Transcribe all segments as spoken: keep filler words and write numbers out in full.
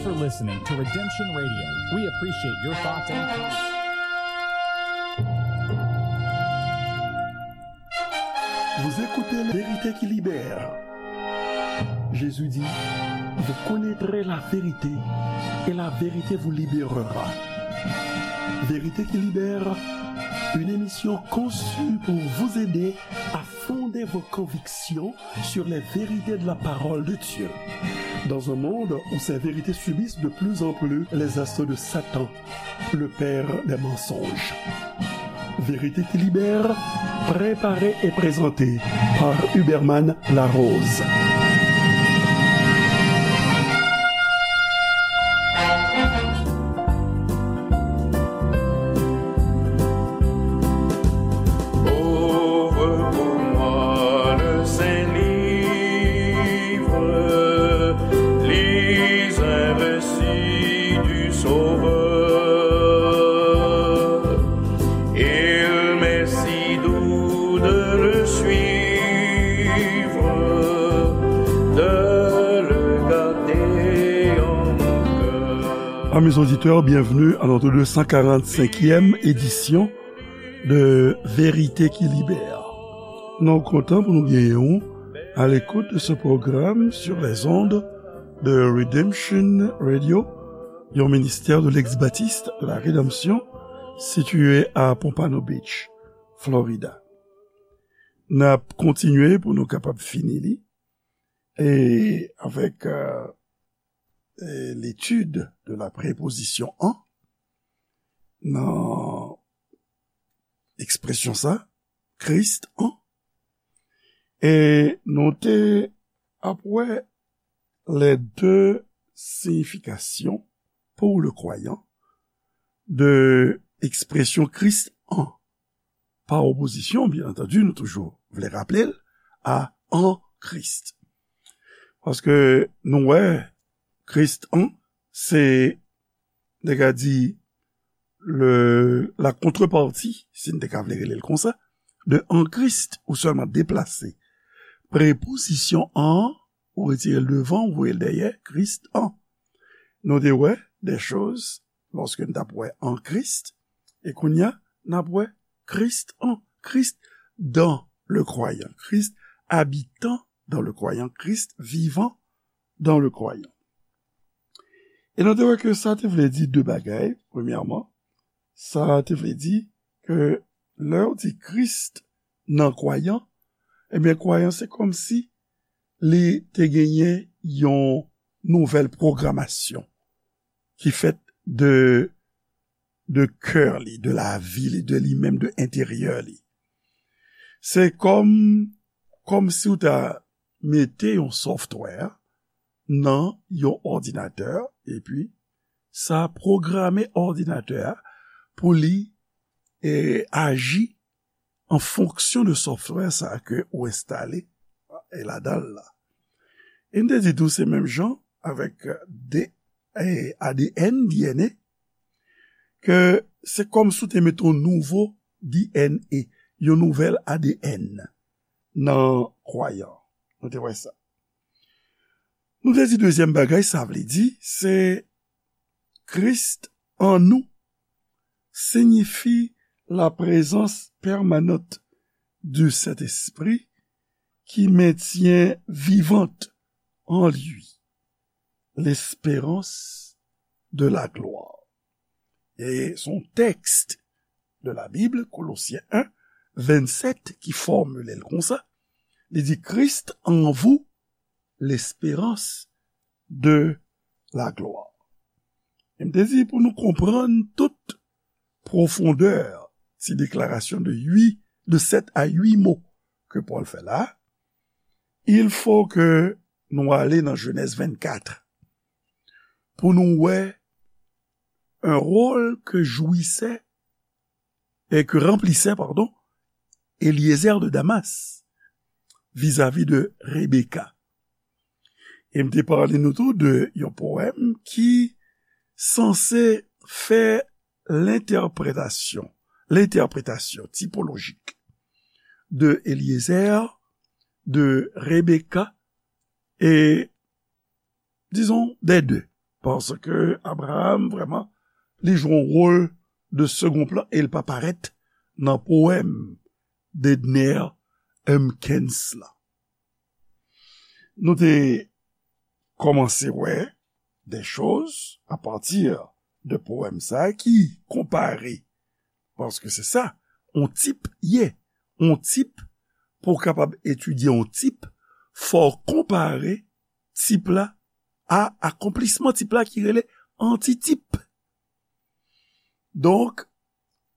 You're listening to Redemption Radio. We appreciate your thoughts and comments. Vous écoutez La Vérité qui libère. Jésus dit, vous connaîtrez la vérité et la vérité vous libérera. Vérité qui libère, une émission conçue pour vous aider à fonder vos convictions sur les vérités de la parole de Dieu. Dans un monde où ces vérités subissent de plus en plus les assauts de Satan, le père des mensonges. Vérité qui libère, préparée et présentée par Huberman Larose. Ouvre pour moi le saint livre, lis un récit du Sauveur. Il m'est si doux de le suivre, de le garder en mon cœur. Amis auditeurs, bienvenue à notre deux cent quarante-cinquième édition de Vérité qui Libère. Nou kontan pou nou genyen w à l'écoute de ce programme sur les ondes de Redemption Radio, yon ministère de l'ex-baptiste de la Rédemption situé à Pompano Beach, Florida. N ap kontinye pou nou kapab fini li e avèk euh, euh, l'étude de la préposition en nan ekspresyon sa, Christ en. E nou te ap wè les deux significations pour le croyant de ekspresyon Christ en. Pa opozisyon, byen antandi, nou toujou vle raple l, a en Christ. Paske nou wè, Christ en, se, nèg la di, le, la contrepartie, si n te ka vle rele l konsa, de en Christ, ou sèlman deplase prepozisyon en, ou retire l devan, ou voye l dèyè, Christ en. Nou te wè des choses, lòske n t ap wè en Christ, e kounye a, n ap wè Christ en, Christ dans le croyant, Christ habitant dans le croyant, Christ vivant dans le croyant. E nou te wè ke sa te vle di de bagay, premyèman, sa te vle di ke lè w di Christ nan kwayan, ebyen kwayan se kòmsi li te genyen yon nouvèl pwogramasyon ki fèt de, de kè li, de lavi li, de li menm, de enteryè li. Se kòm, kòmsi w ta mete yon software nan yon òdinatè, epi sa pwograme òdinatè a pou li e, aji an fonksyon de software sa ke ou enstale e ladan l la. E m te di tou se menm jan avèk de, e, A D N, D N A, ke se kòmsi w te mete yon nouvo D N A, yon nouvèl A D N nan kwayan. Nou te wè sa. Nou te di dezyèm bagay, sa vle di, se Christ en nous signifie la présence permanente du Saint-Esprit qui maintient vivante en lui l'espérance de la gloire. E se yon tèks de la Bible, Colossiens un, vingt-sept, ki fòmile l konsa. Li di, Christ en vous, l'espérance de la gloire. E m te di pou nou konprann tout pwofondè ti deklarasyon de uit, de sèt a uit mo ke Pòl fè la, il faut que nou ale nan Jenèz vennkat pou nou wè un rôle que jouissait et que remplissait, pardon, Eliezer de Damas vis-à-vis de Rebecca. E m te pale nou tou de yon powèm ki sanse fè lentèpretasyon, lentèpretasyon tipolojik de Eliezer, de Rebecca e, disons, des deux. paske Abraham, vrèman, li jwe yon wòl de second plan e l pa parèt nan powèm Dedner Humpkins lan. Nou te kòmanse wè de choz apati de powèm sa a ki konpare, paske se sa, yon tip ye, yon tip, pou w kapab etidye yon tip, fò w konpare tip la a akonplisman tip la ki rele antitip. Donk,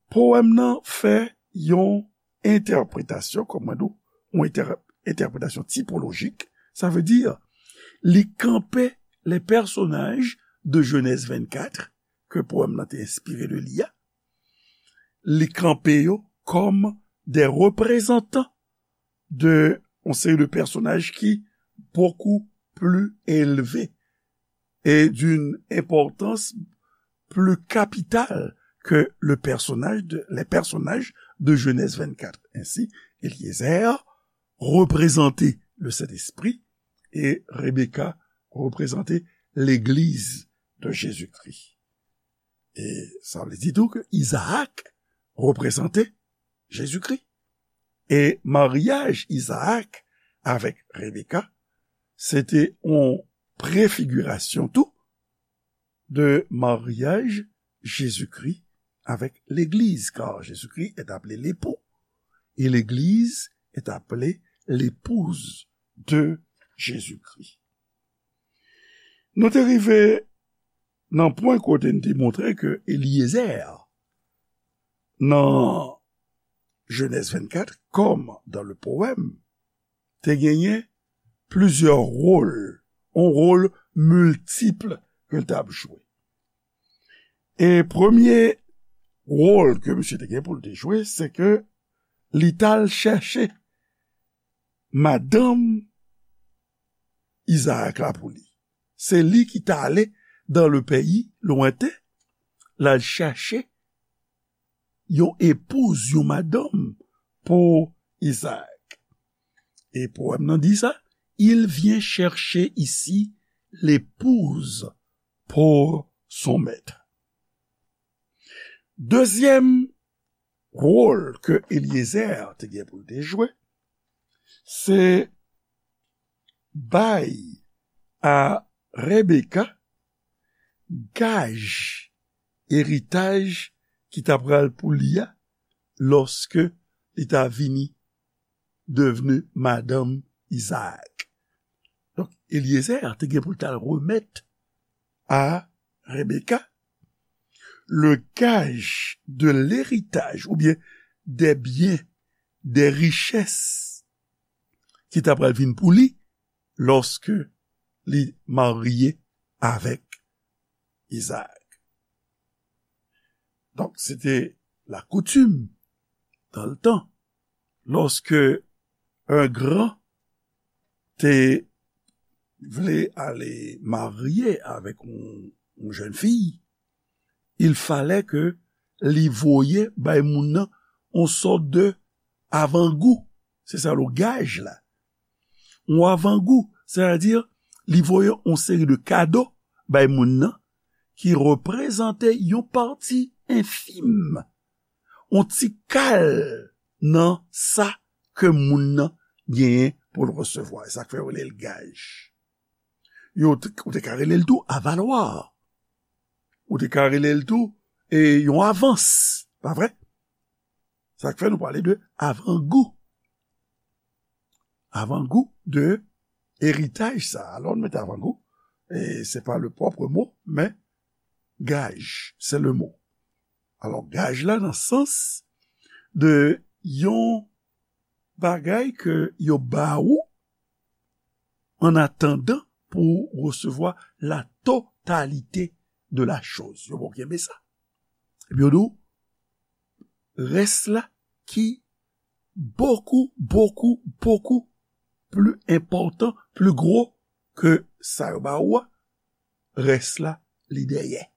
powèm nan fè yon entèpretasyon, kòm mwen di w, yon entè-, entèpretasyon tipolojik, sa vle di, li kanpe les personnages de Genèse vingt-quatre, ke powèm nan te enspire de li a, li kanpe yo kòm des représentants de yon seri de pèsonaj ki beaucoup plus élevés et d'une importance plus capitale que le personnage de, les personnages de Genèse vingt-quatre. Ainsi, Eliezer reprezante le Sentespri e Rebecca reprezante Legliz de Jezikri. E sa vle di tou ke Izaak reprezante Jezikri. E maryaj Izaak avèk Rebecca, se te yon prefigirasyon tou de maryaj Jezikri avèk Legliz, car Jésus-Christ est appelé l'époux, et l'Église est appelée l'épouse de Jésus-Christ. Nou te rive nan pwen kote n te montre ke Eliezer, nan Genèse vingt-quatre, comme dans le poème, te genyen plizyè wòl, yon wòl miltip ke l t ap jwe. E premye wòl ke misye te gen pou l te jwe, se ke li t al chèche madanm Izaak la pou li. Se li ki t ale dans le pays lointain, l al chèche yon epouz, yon madanm pou Izaak. E powèm nan di sa, il vient chercher ici l'épouse pour son maître. Dezyèm wòl ke Eliezer te gen pou l te jwe, se bay a Rebecca gaj eritaj ki ta pral pou li a lòske li ta vini devni madanm Izaak. Donk, Eliezer te gen pou l t al remèt a Rebecca le gage de l'héritage, oubyen des biens, des richesses ki ta pral vin pou li lòske li marye avèk Izaak. Donk, se te la coutume dans le temps, lòske un grand te vle ale marye avèk yon, yon jèn fi, il fallait que li voye bay moun nan yon sòt de avangou. Se sa le gage la. Yon avangou, sètadi, li voye yon seri de kado bay moun nan ki reprezante yon pati enfim, yon ti kal nan sa ke moun nan genyen pou l resevwa. E sa k fè yo rele l gaj. Yo te, ou te ka rele l tou avalwa. Ou te ka rele l tou, e, yon avans, pa vre? Sa k fè nou pale de avangou. Avangou de eritaj sa. Alò, nou mete avangou, e se pa le propre mot, men gaj, c'est le mot. Alò, gaj la nan sans de yon bagay ke yo ba ou an atandan pou w resevwa la totalité de la chose. Yo ba w kenbe sa. Epi yo di w, rès la ki bokou, bokou, bokou pli enpòtan, pli gwo ke sa yo ba ou a, rès la, li dèyè.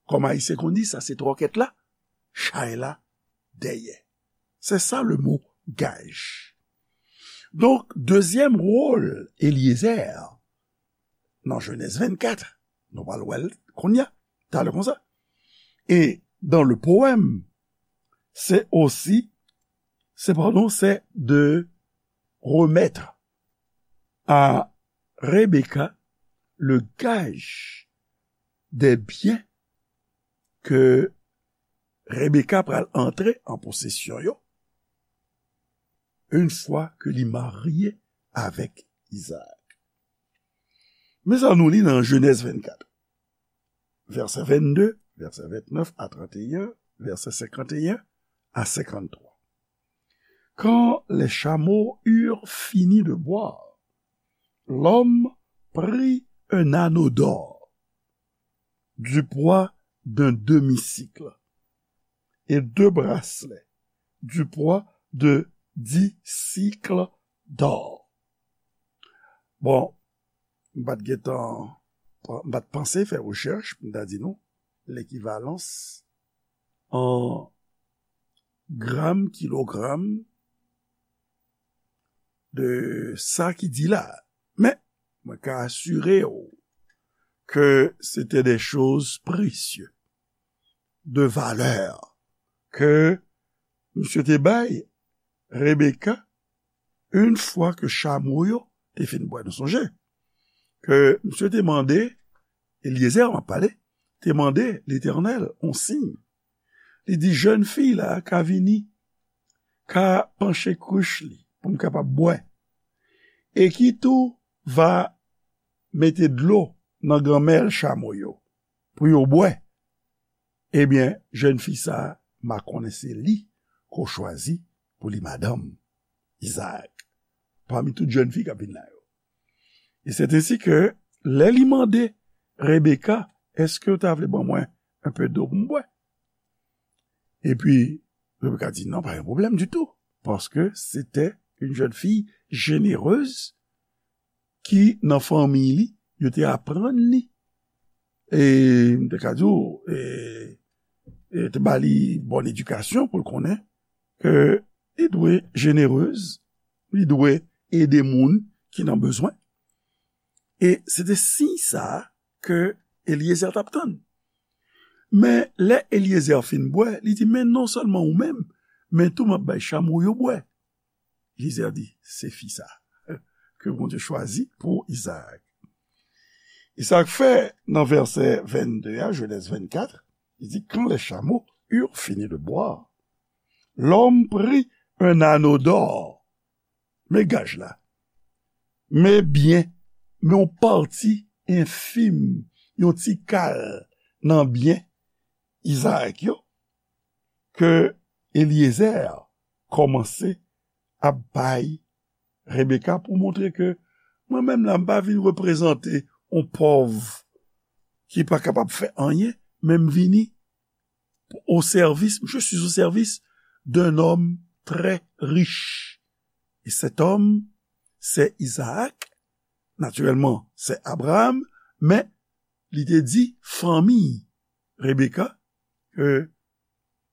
Kòm Ayisyen konn di, sa se twòkèt la, chay la dèyè. Se sa le mo gaj. Donk, dezyèm wòl Eliezer nan Jenèz vennkat, Nou pral wè l kounye a, talè konsa. Et dans le poème, c'est aussi, c'est, pardon, c'est de remettre à Rebecca le gage des biens que Rebecca pral antre an posesyon yo, une fois que li marye avèk Isaac. Men sa nou li nan Genèse vingt-quatre, verset vingt-deux, verset vingt-neuf à trente et un, verset cinquante et un à cinquante-trois. Quand les chameaux eurent fini de boire, l'homme prit un anneau d'or du poids d'un demi-sicle et deux bracelets du poids de dix sicles d'or. Bon, m pa t gentan, m pa t panse fè rechèch pou m ta di nou lekivalans an gram, kilogram de sa ki di la. Men, mwen ka asire w ke se te de choz presye, de valè, ke misye te bay Rebecca, une fois que chamo yo te fin bwè. Nou sonje ke misye te mande, Eliezer m ap pale, te mande Letènèl on siy. Li di, jèn fi la ka vini, ka panche krich li pou m kapab bwè. E ki tou va mete dlo nan ganmèl chamo yo pou yo bwè. Ebyen, jèn fi sa a, m a konnen se li ke w chwazi pou li madanm, Izaak, pami tout jèn fi k ap vin la yo. E c'est ainsi que, lè li mande Rebecca, èske w ta vle ban mwen un peu d'eau pou m bwè? Epi, Rebecca di, non, pas un problème du tout, parce que c'était une jeune fille généreuse ki nan fanmi li, yo te aprann li, e m te ka di w, e, e te ba li bòn edikasyon pou l konnen ke li dwe jenerez, li dwe ede moun ki nan bezwen. E se te siy sa a ke Eliezer t ap tann. Men lè Eliezer fin bwè, li di, men non sèlman ou menm, men tou m ap bay chamo yo bwè. Eliezer di, se fi sa ke Bondye chwazi pou Izaak. E sa k fè nan vèsè vennde a, Genèse vingt-quatre, li di, quand les chameaux eurent fini de boire, l'homme prit un anneau d'or. Men gaj la. Men byen, men yon pati enfim, yon ti kal nan byen Izaak yo, ke Eliezer kòmanse ap bay Rebecca pou montre ke mwen menm la, m pa vin reprezante yon pòv ki pa kapab fè anyen, men m vini au service, je suis au service d'un homme très riche. Et cet homme, c'est Isaac. Naturellement, c'est Abraham, men li te di fanmi Rebecca ke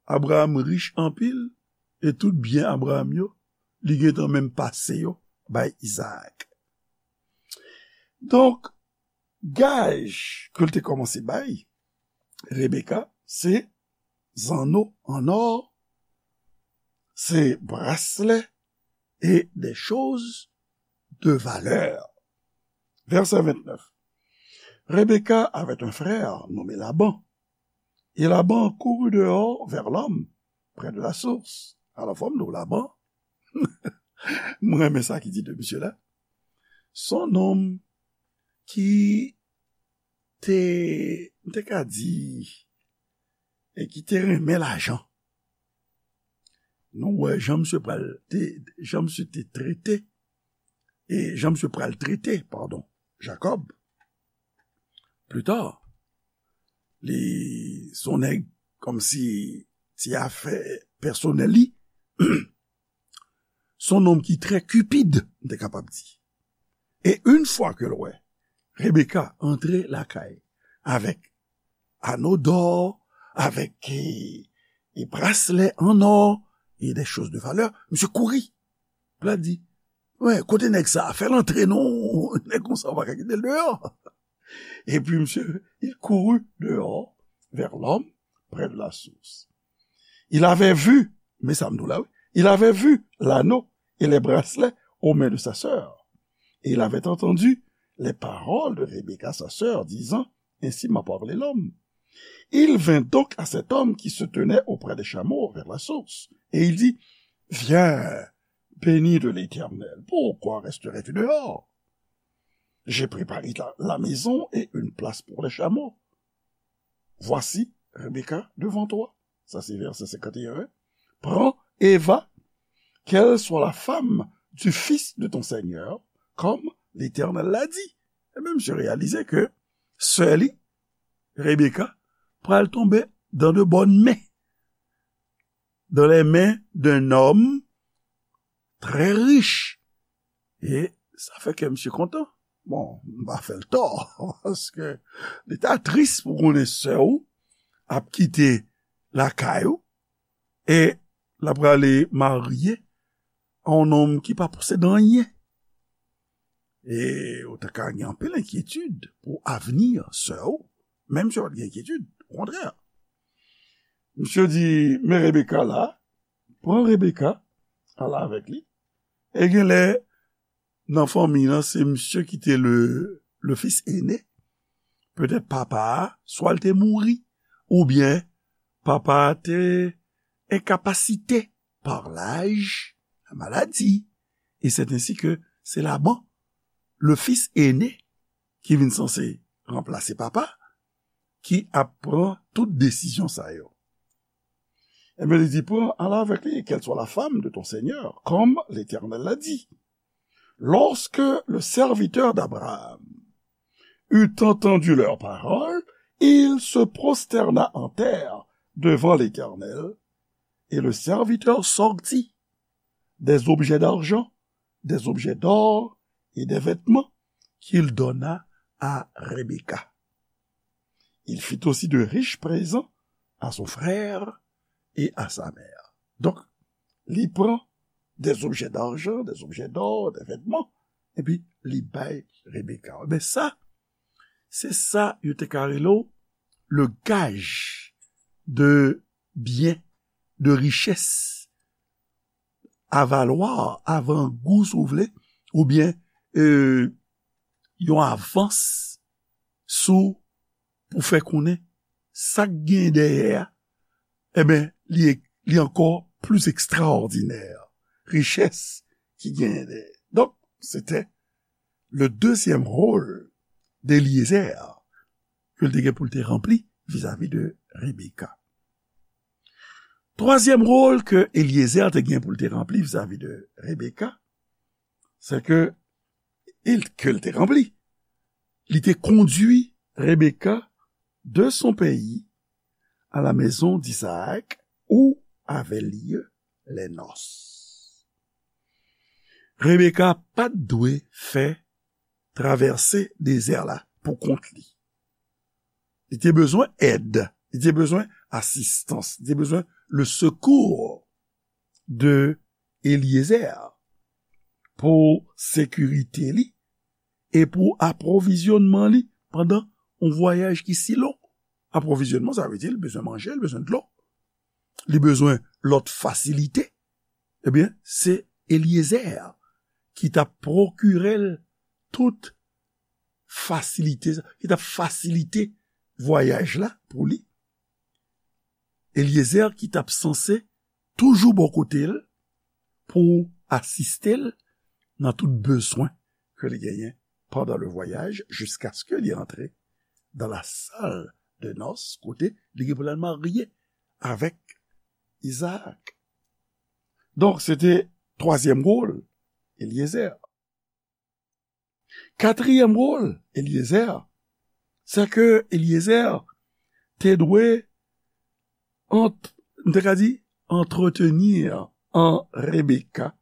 Abraham rich anpil, e tout byen Abraham yo, li gentan menm pase yo bay Izaak. Donk, gaj ke l te kòmanse bay Rebecca, se zanno an or, se braslè e de choz de valè. Vèsè vennèf. Rebecca avait un frère nommé Laban. Et Laban courut dehors vers l'homme près de la source. Alò, fò m di w, Laban, mwen renmen sa ki di de misye la. Se yon nonm ki te, m te ka di, e ki te renmen lajan. Nou wè jan misye pral te, jan misye te trete, e jan misye pral trete, padon, Jakòb. Pli ta, li se yon nèg kòmsi se afè pèsonèl li. Se yon nonm ki trè cupide, m te kapab di. E yon fwa ke l wè Rebecca antre lakay avèk anno d'or, avèk e, e braslè an or, e de choz de valè, misye kouri. L ap di, wè, kote nèg sa a? Fè l antre non, nèg konsa w pa ka kite l deyò. Et puis, monsieur, il courut dehors vers l'homme près de la source. Il avait vu, men sa m di w la, wi, il avait vu l'anneau et les bracelets aux mains de sa sœur. Et il avait entendu les paroles de Rebecca, sa sœur, disant, ainsi m'a parlé l'homme. Il vint donc à cet homme qui se tenait auprès des chameaux vers la source, et il dit, viens, béni de l'Éternel, pourquoi resterais-tu dehors? J'ai préparé la, la maison et une place pour les chameaux. Voici Rebecca devant toi. Ça, c'est verset cinquante et un. Prends et va, qu'elle soit la femme du fils de ton Seigneur, comme l'Éternel l'a dit. E men, misye reyalize ke sè li, Rebecca, pral tonbe dans de bonnes mains, dans les mains d'un homme très riche. E sa fè kè misye kontan. Bon, m pa fè l tò, paske li ta tris pou konnen sè w ap kite lakay ou e l ap prale marye a yon nonm ki pa posede anyen. E ou ta ka gen anpil enkyetid pou avni sè w, menm si w pa t gen enkyetid, okontrè. Misye di, men Rebecca la, pran Rebecca, al avèk li. E genlè, nan fanmi an, se misye ki te le, le fils aîné. Petèt papa a, swa l te mouri, oubyen papa a te enkapasite par laj, la maladi. E c'est ainsi que c'est Laban, le fils aîné, ki vin sanse ranplase papa, ki ap pran tout desizyon sa yo. Ebyen, li di, pran, al avèk li, qu'elle soit la femme de ton Seigneur, comme l'Éternel l'a dit. Lorsque le serviteur d'Abraham eut entendu leurs paroles, il se prosterna en terre devant l'Éternel, et le serviteur sortit des objets d'argent, des objets d'or et des vêtements qu'il donna à Rebecca. Il fit aussi de riches présents à son frère et à sa mère. Donk, li pran des objets d'argent, des objets d'or, des vêtements, epi li bay Rebecca. Men sa, se sa yo te ka rele w le gage de bien, de richès, avalwa, avangou, si w vle, oubyen, e, yon avans sou, pou fè konnen sa k gen dèyè a, ebyen, li, li ankò plis ekstraòdinè, richès ki genyen dèyè. Donk, se te le deuxième rôle d'Eliézer ke l te gen pou l te ranpli vizavi de Rebecca. Twazyèm wòl ke Eliezer te gen pou l te ranpli vizavi de Rebecca, se ke, ke l te ranpli. Li te kondui Rebecca de son pays à la maison d'Isaac où avaient lieu les noces. Rebecca pa t dwe fè travèse dezè la pou kont li. Li te bezwen èd, li te bezwen asistans, li te bezwen le secours de Eliezer pou sekirite li e pou apwovizyonnman li pandan yon vwayaj ki si lon. Apwovizyonnman, sa vle di li bezwen manje, li bezwen dlo, li bezwen lòt fasilite. Ebyen, se Eliezer ki t ap pwokire l tout fasilite, ki t ap fasilite vwayaj la pou li. Eliezer ki t ap sanse toujou bò kote l pou asiste l nan tout bezwen ke li genyen pandan le vwayaj, jiskaske li antre dans la salle de noces, kote li gen pou l al marye avèk Izaak. Donk, se te twazyèm wòl Eliezer. Katriyèm wòl Eliezer, se ke Eliezer te dwe ant-, m te ka di, entretenir en Rebecca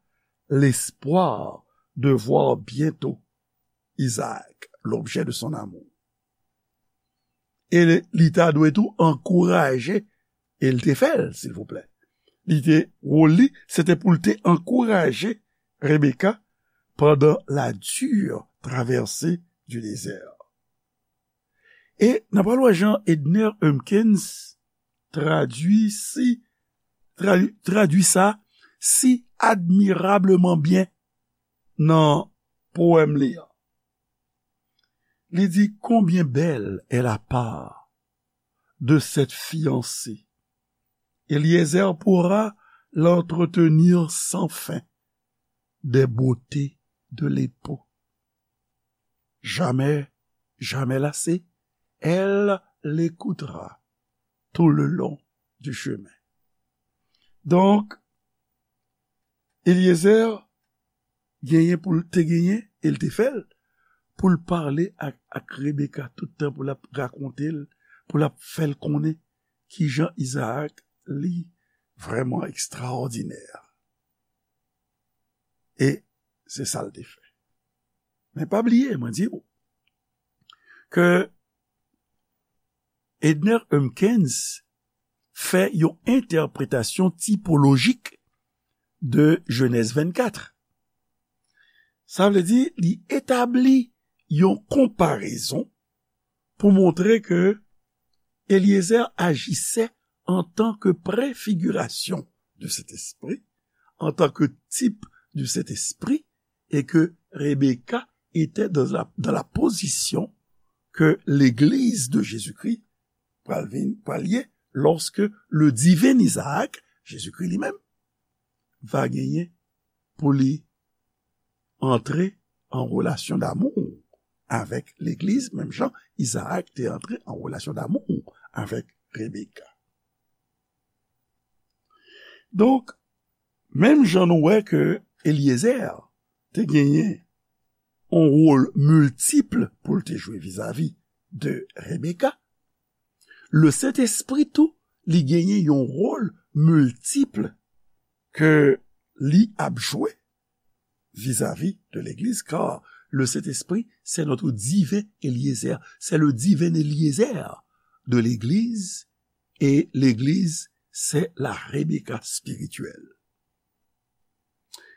l'espoir de voir bientôt Isaac, l'objet de son amour. E li, li ta dwe tou ankouraje, e l te fè l, silvouplè. Li te, wòl li, se te pou l te ankouraje Rebecca pendant la dure traversée du désert. E n ap pral wè jan Edner Humpkins tradui si, tradui, tradui sa si admirableman byen nan powèm li an. Li di: Combien belle est la part de cette fiancée. Eliezer pourra l'entretenir sans fin des beautés de l'époux. Jamais, jamais lassée, elle l'écoutera tout le long du chemin. Donk, Eliezer genyen pou l te genyen, e l te fè l, pou l pale ak, ak Rebeka tout tan, pou l ap rakonte l, pou l ap fè l konnen kijan Izaak li vrèman ekstraòdinè. E se sa l te fè. Men pa bliye, mwen di w, ke Edner Humpkins fè yon entèpretasyon tipolojik de Jenèz vennkat. Sa vle di, li etabli yon konparezon pou montre ke Eliezer ajisè antanke prefigirasyon de Sentespri, antanke tip de Sentespri, e ke Rebeka etè dan la, dan la pozisyon ke legliz de Jezikri pral vin, pral ye, lòske le diven Izaak, Jezikri li menm, va genyen pou li antre an relasyon damou avèk legliz, menm jan Izaak te antre an relasyon damou avèk Rebeka. Donk, menm jan nou wè ke Eliezer te genyen yon wòl miltip pou l te jwe vizavi de Rebeka, le Sentespri tou, li genyen yon wòl miltip ke li ap jwe vis-à-vis de l'Église, car le Saint-Esprit, c'est notre divin Eliezer. C'est le divin Eliezer de l'Église, et l'Église, c'est la Rebecca spirituelle.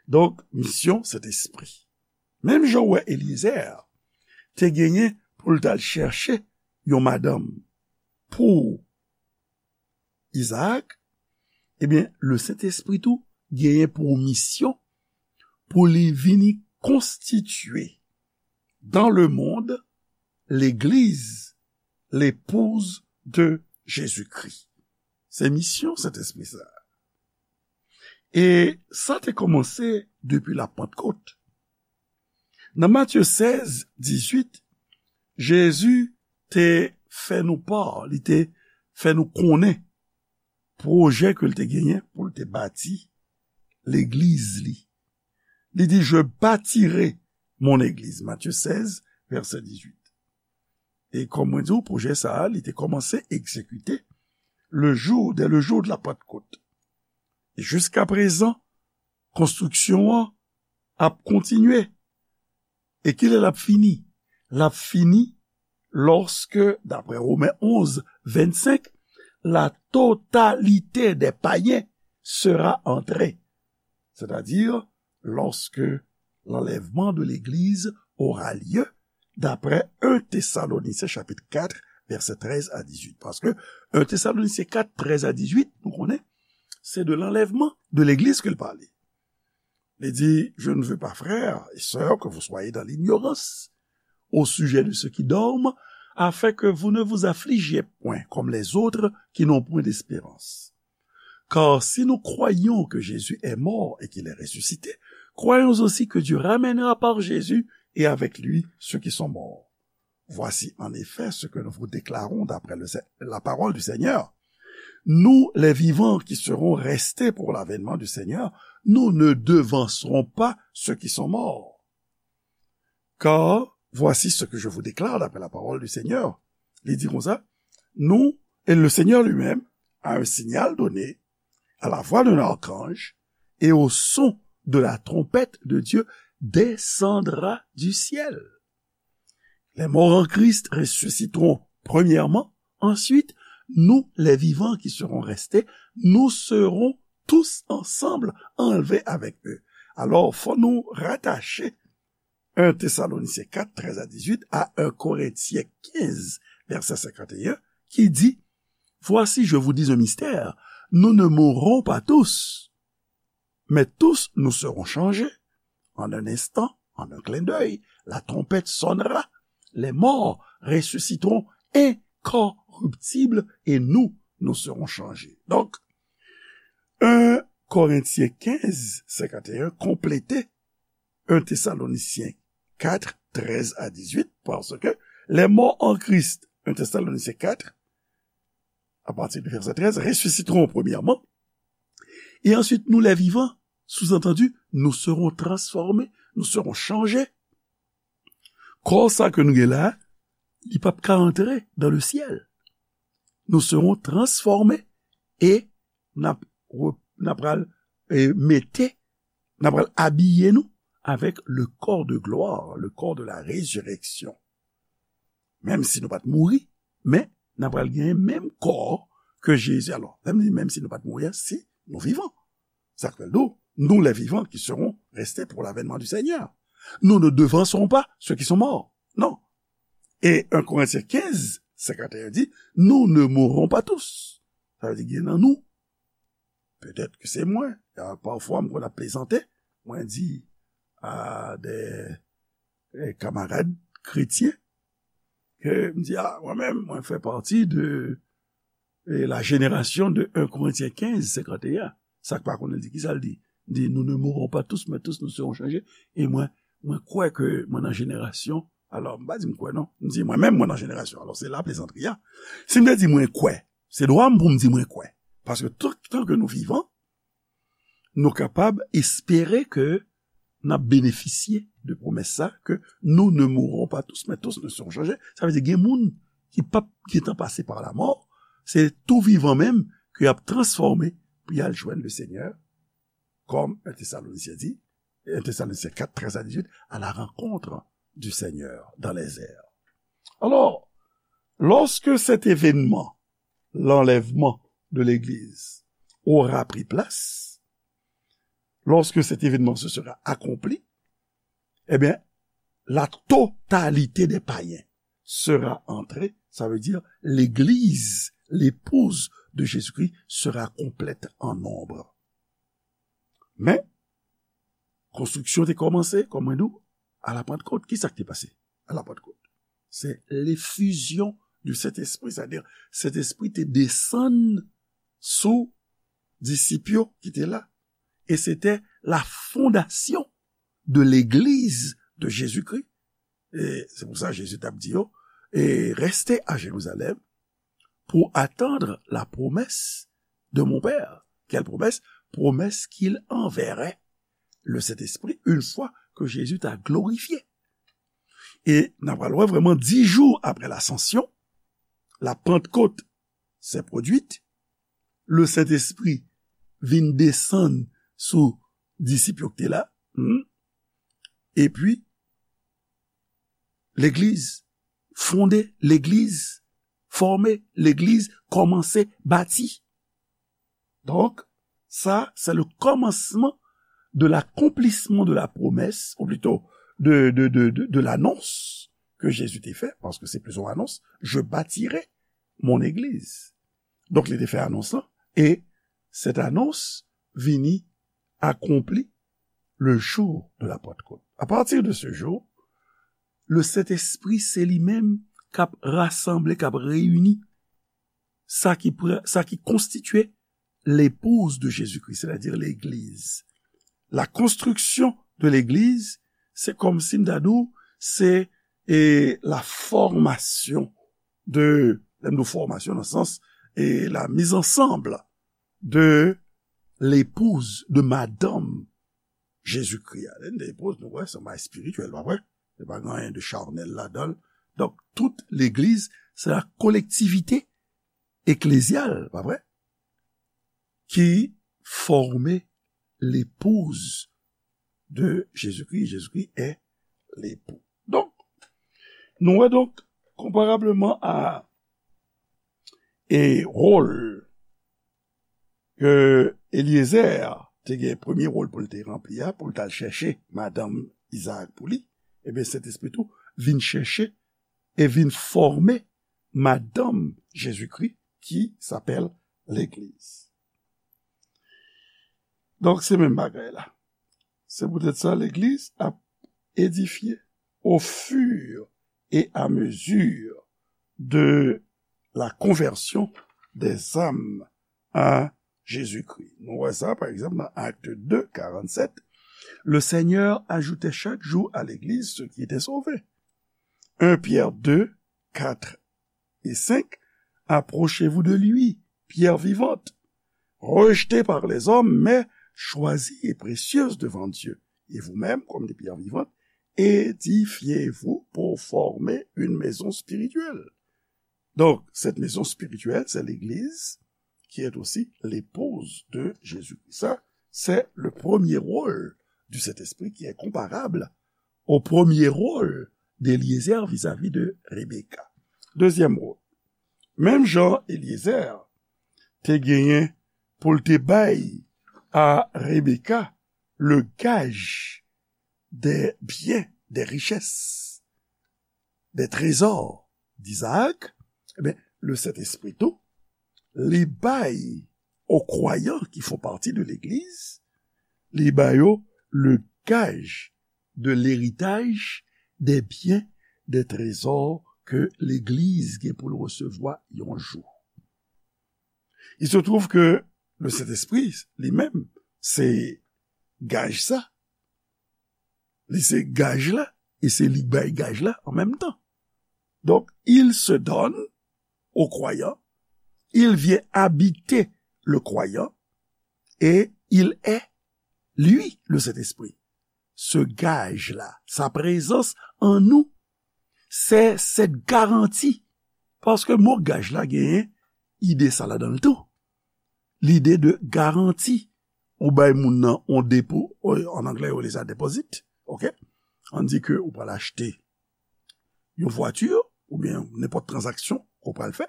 Donk, misyon Sentespri. Menm jan w wè Eliezer te genyen pou l t al chèche yon madanm pou Izaak, ebyen, le Sentespri tou genyen pou misyon pou li vini konstitye dans le monde l'église, l'épouse de Jésus-Christ. Se misyon Sentespri sa. E sa te kòmanse depi Lapantkot. Nan Matye sèz, dizuit, Jezi te fè nou pa, li te fè nou konnen pwojè ke l te genyen pou l te bati legliz li. Li di, je bâtirai mon église. Matye sèz, vèsè dizuit. E kòm mwen di w, pwojè sa a, li te kòmanse egzekite le jou, dès le jour de la Pentecôte. E jiska prezan, konstriksyon an ap kontinye. E kilè l ap fini? L ap fini lòske, daprè Women onz, vennsenk, la totalité des païens sera entrée. C'est-à-dire, lorsque l'enlèvement de l'Église aura lieu, d'après un Thessaloniciens chapitre quatre, versets treize à dix-huit. Paske un Thessaloniciens quatre, treize à dix-huit, nou konnen, se de l'enlèvement de l'Église ke l pale. Li di, je ne veux pas, frères et sœurs, que vous soyez dans l'ignorance au sujet de ceux qui dorment, afin que vous ne vous affligiez point comme les autres qui n'ont point d'espérance. Car si nous croyons que Jésus est mort et qu'il est ressuscité, croyons aussi que Dieu ramènera par Jésus et avec lui ceux qui sont morts. Voici en effet ce que nous vous déclarons d'après le Se-, la parole du Seigneur. Nous, les vivants qui serons restés pour l'avènement du Seigneur, nous ne devancerons pas ceux qui sont morts. Car voici ce que je vous déclare d'après la parole du Seigneur. Li di konsa, nous, et le Seigneur lui-même, à un signal donné, à la voix d'un archange et au son de la trompette de Dieu, descendra du ciel. Les morts en Christ ressusciteront premièrement. Ensuite, nous, les vivants qui serons restés, nous serons tous ensemble enlevés avec eux. Alors, faut nous rattacher un Thessaloniciens quatre, treize à dix-huit à un Corinthiens quinze, vèsè senkanteyen, ki di, Voici, je vous dis un mystère, nous ne mourrons pas tous, mais tous nous serons changés. En un instant, en un clin d'œil, la trompette sonnera, les morts ressusciteront incorruptibles et nous, nous serons changés. Donk, en Korentyen kenz, senkanteyen konplete en Thessaloniciens quatre, treize à dix-huit, parce que les morts en Christ, en Thessaloniciens quatre, à partir du verset treize, ressusciteront premièrement, et ensuite nous les vivants, sous-entendu, nous serons transformés, nous serons changés. Kò sa ke nou gen la, li p ap ka antre dans le ciel. Nous serons transformés et n ap re- n ap pral eh, mete, n ap pral abiye nou avec le corps de gloire, le corps de la résurrection. Menm si nou pa t mouri, men n ap pral genyen menm kò ke Jezi. Alò, lè m di menm si nou pa t mouri a, si nou vivan. Sa k fè l di w, nous les vivants qui serons restés pour l'avènement du Seigneur. Nous ne devancerons pas ceux qui sont morts. Non. Et un Corinthiens quinze, cinquante et un dit, nous ne mourrons pas tous. Sa vle di gen nan nou, petèt ke se mwen, pafwa m konn ap plezante, mwen di a de eh, kamarad kretyen, ke m di, a, mwen menm, mwen fè pati de eh, la génération de un Corinthiens quinze, cinquante et un. Sa k pa konnen di, kisa l di? Di, nous ne mourrons pas tous, mais tous nous serons changés. E mwen, mwen kwè ke mwen nan jenerasyon, alò, m pa di m kwè non, m di mwen menm mwen nan jenerasyon. Alò, se la plezantri a. Si m te di mwen kwè, se dwa m pou m di mwen kwè. Paske tout tan ke nou vivan, nou kapab espere ke n ap benefisye de pwomès sa, ke nous ne mourrons pas tous, mais tous nous serons changés. Sa vle di gen moun ki p ap gentan pase pa lamò, se tou vivan menm ke y ap transfòme pou y al jwenn le Senyè, kòm un Thessaloniciens dit, un Thessaloniciens quatre, treize à dix-huit, à la rencontre du Seigneur dans les airs. Alors, lorsque cet événement, l'enlèvement de l'Église, aura pris place, lorsque cet événement se sera accompli, eh bien, la totalité des païens sera entrée, ça veut dire l'Église, l'épouse de Jésus-Christ, sera complète en nombre. Men, konstriksyon te kòmanse, kòm mwen di w, a la Pantkot. Kisa k te pase a la Pantkot? Se l'effusion du Saint-Esprit, c'est-à-dire Sentespri te desann sou disip yo ki te la. E se te la fondation de l'Église de Jésus-Christ. E se pou sa Jezi t ap di yo, e restez à Jérusalem pour attendre la promesse de mon Père. Quelle promesse? Promesse qu'il enverrait le Saint-Esprit une fois que Jésus t'a glorifié. E n ap pral wè vrèman dis jours après l'Ascension, la Pentecôte s'est produite, le Saint-Esprit vin desann sou disip yo ki te la, hmm, epi legliz fonde, legliz fòme, legliz kòmanse bati. Donk, sa, c'est le commencement de l'accomplissement de la promesse, ou plutôt de, de, de, de, de l'annonce que Jésus te fè, paske se plito yon anons, je bâtirai mon église. Donk, li te fè anons lan, e cette annonce vini accomplie le jour de la Pentecôte. À partir de ce jour, le Saint-Esprit, se li menm k ap rasanble, k ap reyini sa ki, pre- sa ki konstitye l'épouse de Jésus-Christ, c'est-à-dire l'église. La construction de l'église, se kòm si m ta di w, se e, la formation de, lè m di w formation dans le sens, e la mise ensemble de l'épouse, de madame Jésus-Christ. Lè n di épouse, nou wè, se yon bagay espirityèl, pa vre? Se pa gen anyen de charnel ladan l. Donk, tout legliz, se la collectivité ecclésiale, pa vre? Ki fòme l'épouse de Jésus-Christ. Jésus-Christ est l'époux. Donk, nou wè donk, konparableman a e wòl ke Eliezer te gen, premye wòl pou l te ranpli a, pou l t al chèche madanm Izaak pou li, ebyen, Sentespri tou vin chèche e vin fòme madanm Jezikri, ki sapèl legliz. Donk, se menm bagay la. Se poutèt sa, legliz ap edifye au fur et à mesure de la conversion des âmes à Jésus-Christ. Nou wè sa, pa egzanp, nan Actes deux, quarante-sept. Le Seigneur ajoutait chaque jour à l'Église ceux qui étaient sauvés. Un Pierre deux, quatre et cinq. Approchez-vous de lui, pierre vivante, rejetée par les hommes, mais choisie et précieuse devant Dieu. Et vous-même, comme des pierres vivantes, édifiez-vous pour former une maison spirituelle. Donc, cette maison spirituelle, c'est l'Église qui est aussi l'épouse de Jésus-Christ. Ça, c'est le premier rôle du Saint-Esprit qui est comparable au premier rôle d'Éliézer vis-à-vis de Rebecca. Deuxième rôle. Menm jan Éliézer te genyen pou l te bay a Rebecca le gaj des biens, des richesses, des trésors d'Isaac, eh bien, le Saint-Esprit tou, li bay aux croyants qui font partie de l'Église, li ba yo le gage de l'héritage, des biens, des trésors que l'Église gen pou l resevwa yon jou. Il se trouve que le Saint-Esprit, li menm, se gaj sa. Li se gaj la, e se li k bay gaj la an menm tan. Donc, il se donne au croyant, il vient habiter le croyant, et il est, lui, le Saint-Esprit. Ce gage-là, sa prezans an nou, c'est cette garantie. Paske mo gaj la genyen ide sa ladan l tou. Lide de garanti. Ou bay moun nan yon depo, an anglè yo rele sa deposit, ok? Ann di ke ou pral achte yon vwati, oubyen nenpòt tranzaksyon ke w pral fè.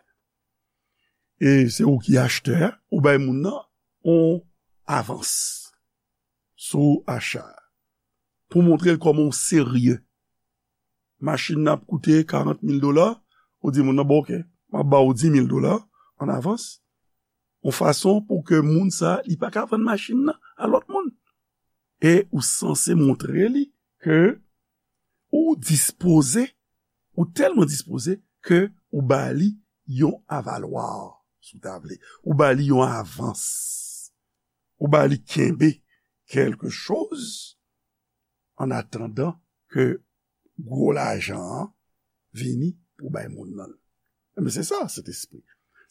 E se ou ki achtè a, ou bay moun nan yon avans sou acha a. Pou montre l kòman w serye. Machin nan ap koute karant mil dola, ou di moun nan, "Bon, ok, m ap ba w di mil dola an avans." Yon fason pou ke moun sa, li pa ka vann machin nan a lòt moun. E ou sanse montre li ke ou dispoze, ou tèlman dispoze ke ou ba li yon avalwa, si w ta vle. Ou ba li yon avans. Ou ba li kenbe kèlke choz an atandan ke gwo lajan an vini pou bay moun nan. Men se sa, Sentespri.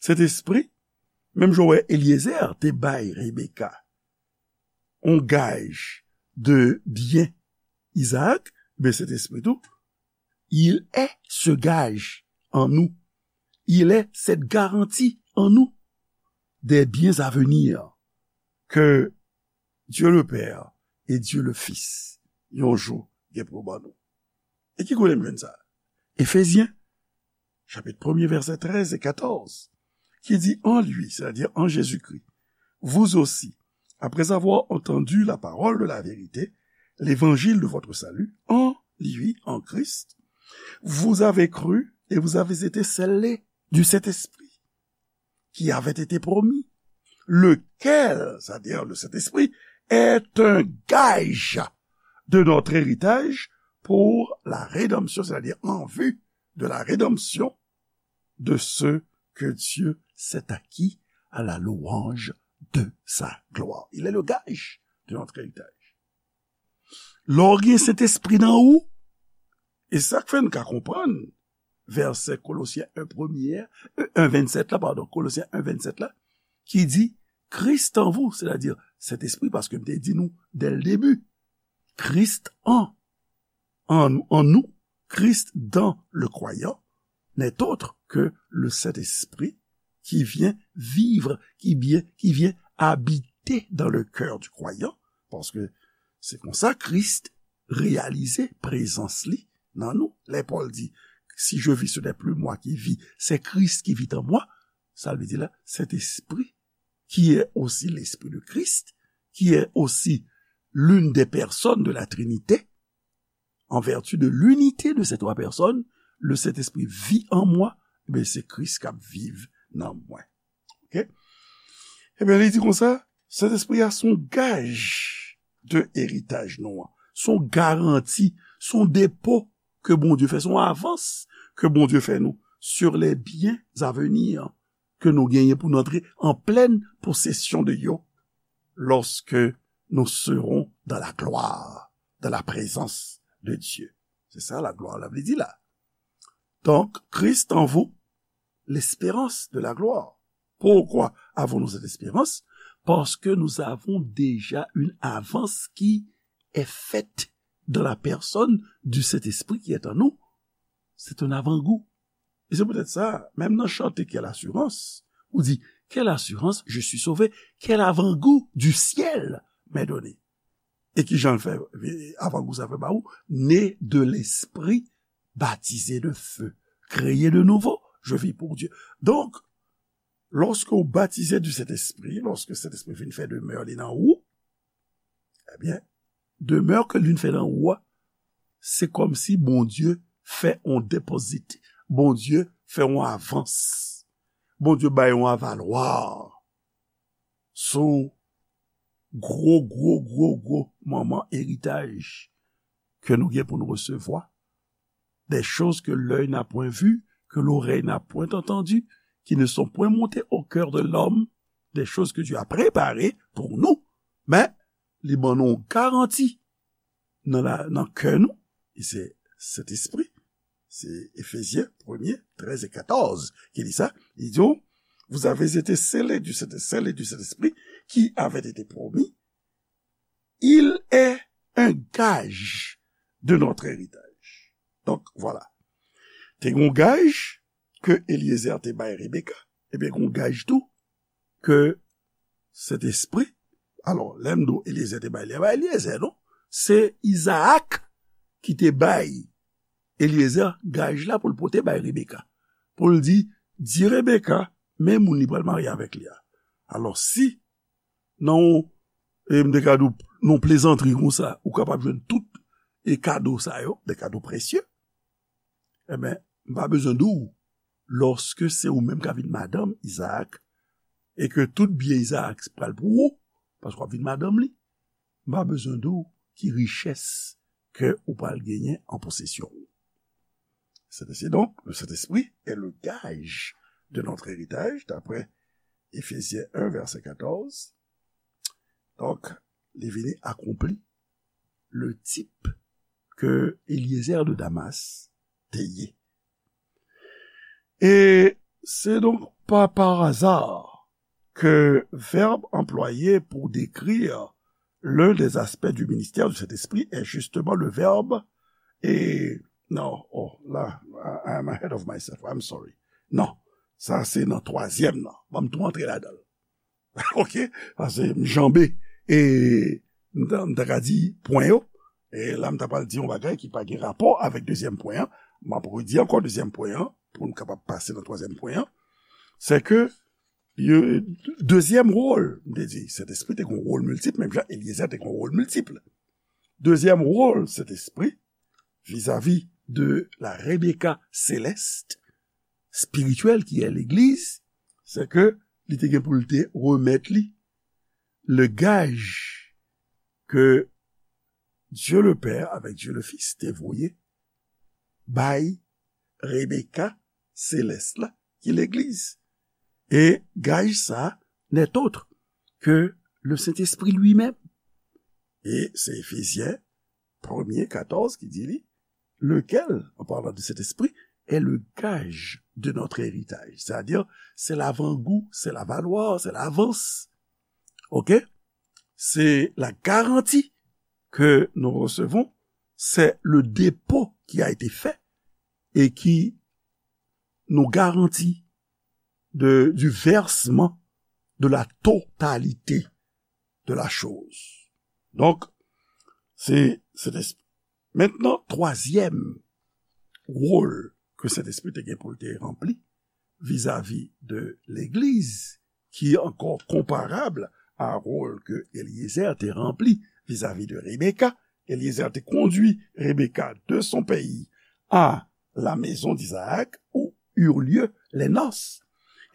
Sentespri, menm jan w wè Eliezer te bay Rebeka yon gaj de byen Izaak, men Sentespri tou, il est ce gage en nous. Il est cette garantie en nous des biens à venir que Dieu le Père et Dieu le Fils, yon jou, gen pou ban nou. E ki kote m jwenn sa? Efezyen, chapit premye, vèsè trèz e katòz, ki di, "En lui, c'est-à-dire en Jésus-Christ, vous aussi, après avoir entendu la parole de la vérité, l'évangile de votre salut, en lui, en Christ, vous avez cru et vous avez été scellés du Saint-Esprit qui avait été promis, lequel, c'est-à-dire le Saint-Esprit, est un gage de notre héritage pour la rédemption, c'est-à-dire en vue de la rédemption de ceux que Dieu s'est acquis à la louange de sa gloire." Il est le gage de notre héritage. Lè w gen Sentespri nan ou, e sa k fè n ka konprann vèsè Kolosyen en premye, euh, en vennsèt la, padon, Kolosyen en vennsèt la, ki di, "Christ en vous," c'est-à-dire Sentespri, paske m te di nou dès le début, Christ en, en, en nous, Christ dans le croyant, n'est autre que le Saint-Esprit qui vient vivre, qui vient, qui vient habiter dans le cœur du croyant, paske se konsa Kris reyalize prezans li nan nou. Lè Pòl di, "Si je vis, ce n'est plus moi qui vis, c'est Christ qui vit en moi," sa vle di la, Sentespri, qui est aussi l'Esprit de Christ, qui est aussi l'une des personnes de la Trinité, en vertu de l'unité de ces trois personnes, le Saint-Esprit vit en moi, men se Kris k ap viv nan mwen. Oke? Ebyen, li di konsa, Sentespri a se yon gaj de eritaj nou an. Se yon garanti, se yon depo ke Bondye fè, se yon avans ke Bondye fè nou sur les biens à venir ke nou genyen pou nou antre an plèn posesyon de yo lorsque nous serons dans la gloire, dans la présence de Dieu. Se sa la glwa la vle di la. Donc, Christ en vous, l'espérance de la gloire. Pourquoi avons-nous cette espérance? Parce que nous avons déjà une avance qui est faite dans la personne du Saint-Esprit qui est en nous. C'est un avant-goût. E se poutèt sa, menm nan chante Quelle assurance, ou di, Quelle assurance, je suis sauvé, quel avant-goût du ciel m'est donné. E ki jan l fè avant-goût sa fè ba ou? Né de l'esprit, baptisé de feu, créé de nouveau, je vis pour Dieu. Donk, lòske w batize du Sentespri, lòske Sentespri vin fè demè li nan ou, ebyen, demè ke li vin fè nan ou a, se kòmsi Bondye fè yon depozit, Bondye fè yon avans, Bondye bay yon avalwa sou gwo, gwo, gwo, gwo manman eritaj ke nou gen pou nou resevwa. Des choses que l'œil n'a point vues, que l'oreille n'a point entendues, qui ne sont point montées au cœur de l'homme, des choses que Dieu a préparées pour nous. Men, li ban nou yon garanti nan, la, nan kè nou, e se Sentespri. Se Efezyen premye, trèz e katòz ki di sa. Li di, vous avez été scellés du Saint-, scellés du Saint-Esprit qui avait été promis. Il est un gage de notre héritage. Donk, vwala. Te gen yon gaj ke Eliezer te bay Rebeka. Ebyen, gen yon gaj tou ke Sentespri. Alò, lè m di w Eliezer te bay li, bay Eliezer, non? Se Izaak ki te bay Eliezer gaj la pou l pote bay Rebeka. Pou l di, di Rebeka, men moun li pral marye avèk li a. Alò, si nan yon, e m te ka di w, nan yon plezantri konsa, ou kapab jwenn tout e kado sa yo, de kado presye, ebyen, m pa bezwen di w, lòske se ou menm k ap vin madanm Izaak, e ke tout byen Izaak pral pou ou, paske w ap vin madanm li, m pa bezwen di w ki richès ke ou pral genyen an posesyon ou. C'est ainsi donc, le Saint-Esprit est le gage de notre héritage, d'après Éphésiens un, verset quatorze. Donk, li vini akonpli le tip ke Eliezer de Damas te ye. Et c'est donc pas par hasard que verbe employé pour décrire l'un des aspects du ministère du Saint-Esprit est justement le verbe et, non, oh, la, I, I'm ahead of myself, I'm sorry. Non, sa se nan twazyèm nan. Ban m tou antre ladan l. Oke? Paske m janbe, e m ta, m ta ka di pwen yo. E la, m ta pral di yon bagay ki pa gen rapò avèk dezyèm pwen an. M ap redi ankò dezyèm pwen an, pou n kapab pase nan twazyèm pwen an. Se ke, yo, dezyèm wòl, m te di, Sentespri te gen yon wòl miltip, menm jan Eliezer te gen yon wòl miltip. Dezyèm wòl Sentespri, vizavi de la Rebecca céleste, spirituelle qui est l'Église, c'est que li te gen pou l te remèt li le gaj ke Dieu le Père avec Dieu le Fils te voye bay Rebecca céleste la, ki legliz. E gaj sa n'est autre que le Saint-Esprit lui-même. E se Efezyen premye katòz ki di li, lequel, en parlant de cet esprit, est le gage de notre héritage. C'est-à-dire, c'est l'avant-goût, c'est l'avaloir, c'est l'avance. OK? C'est la garantie que nous recevons, c'est le dépôt qui a été fait et qui nous garantit de, du versement de la totalité de la chose. Donk, se, se, mentnan, twazyèm wòl ke Sentespri te gen pou l te ranpli vizavi de legliz, ki ankò konparab a wòl ke Eliezer te ranpli vizavi de Rebecca. Eliezer te kondui Rebecca de son pays à la maison d'Isaac, où eurent lieu les noces,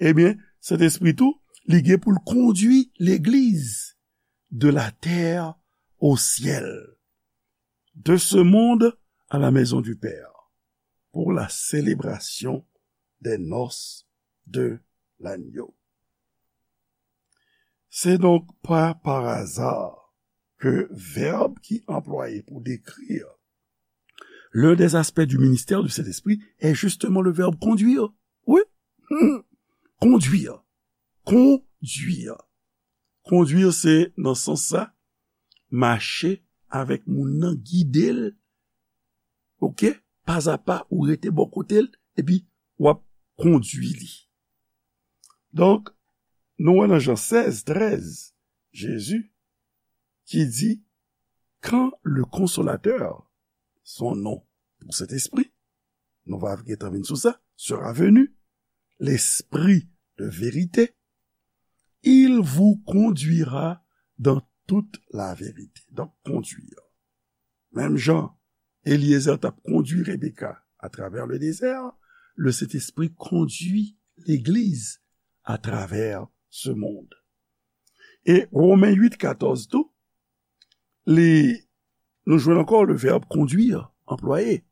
ebyen, Sentespri tou, li gen pou l kondui legliz de la terre au ciel, de ce monde à la maison du Père, pour la célébration des noces de l'agneau. C'est donc pas par hasard que verbe qui est employé pour décrire l'un des aspects du ministère du Saint-Esprit est justement le verbe conduire. Oui. Hmm. Conduire. Conduire. Conduire, se nan sans sa, mache avèk moun nan, gide l, ok, pazapa, ou rete bò kote l, epi w ap kondui li. Donk, nou wè nan Jan sèz, trèz, Jezi ki di, quand le consolateur, son nom pour cet esprit, nou va gentan vin sou sa, sera venu, l'esprit de vérité, il vous conduira dans toute la vérité. Donc, conduire. Menm jan Eliezer t ap kondui Rebecca à travers le désert, le Saint-Esprit conduit l'Église à travers ce monde. E Romen uit katòz tou, li, nou jwenn ankò le verbe conduire anplwaye.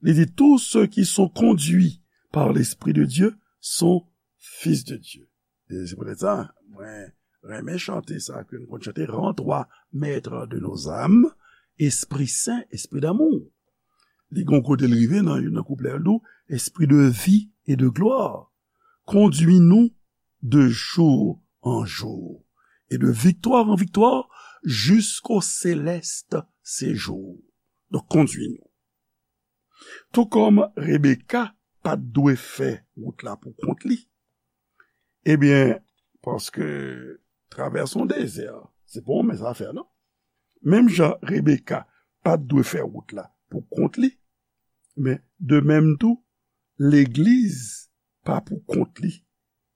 Li di, tous ceux qui sont conduits par l'Esprit de Dieu sont fils de Dieu. E se poutèt sa, mwen renmen chante sa ke nou konn chante, Rends-toi maître de nos âmes, Esprit Saint, Esprit d'amour. Li gon kote l rive nan youn nan kouplè l tou, Esprit de vie et de gloire, conduis-nous de jour en jour, et de victoire en victoire, jusqu'au céleste séjour. Donk, kondui nou. Tou kòm Rebecca pa t dwe fè wout la pou kont li, ebyen, paske travèse yon dezè, se pa yon mens afè, non. Menm jan Rebecca pa t dwe fè wout la pou kont li, men de menm tou, legliz pa pou kont li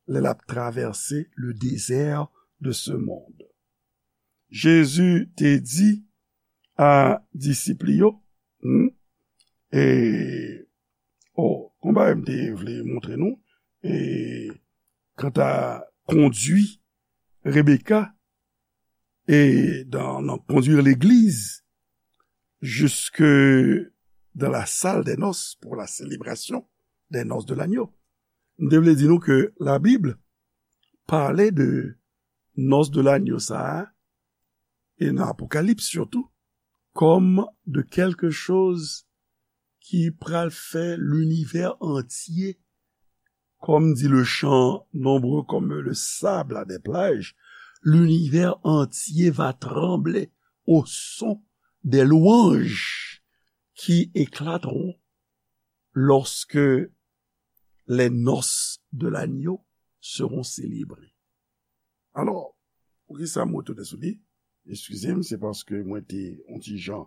lè l ap travèse le désert de ce monde. Jezi te di a disip li yo, hmm, e, o, gon bagay m te vle montre nou, e, kanta kondui Rebecca, et dans, dans conduire l'Église jusque dans la salle des noces pour la célébration des noces de l'agneau. M te vle di nou ke Labib pale de noces de l'agneau sa a, e nan Apokalips sitou, kòm de quelque chose ki pral fè linivè antye, comme dit le chant, nombreux comme le sable à des plages, l'univers entier va trembler au son des louanges qui éclateront lorsque les noces de l'agneau seront célébrées. Alò, poukisa m retounen sou li? Eskize m, se paske mwen te yon ti jan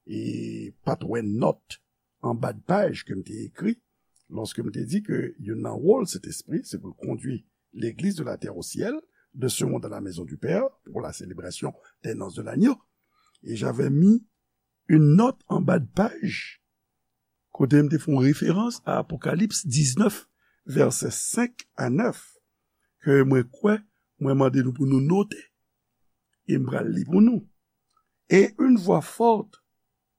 e pa t wè nòt anba de paj ke m te ekri, lòske m te di ke youn nan wòl Sentespri, se pou l kondui l'Église de la terre au ciel, de ce monde à la maison du Père, pour la célébration des noces de l'agneau. Et j'avais mis une note anba de paj, kote m te fè yon referans a Apokalips diznèf, vèsè senk a nèf, ke mwen kwè, mwen mande nou pou nou note, e m pral li pou nou. Et une voix forte,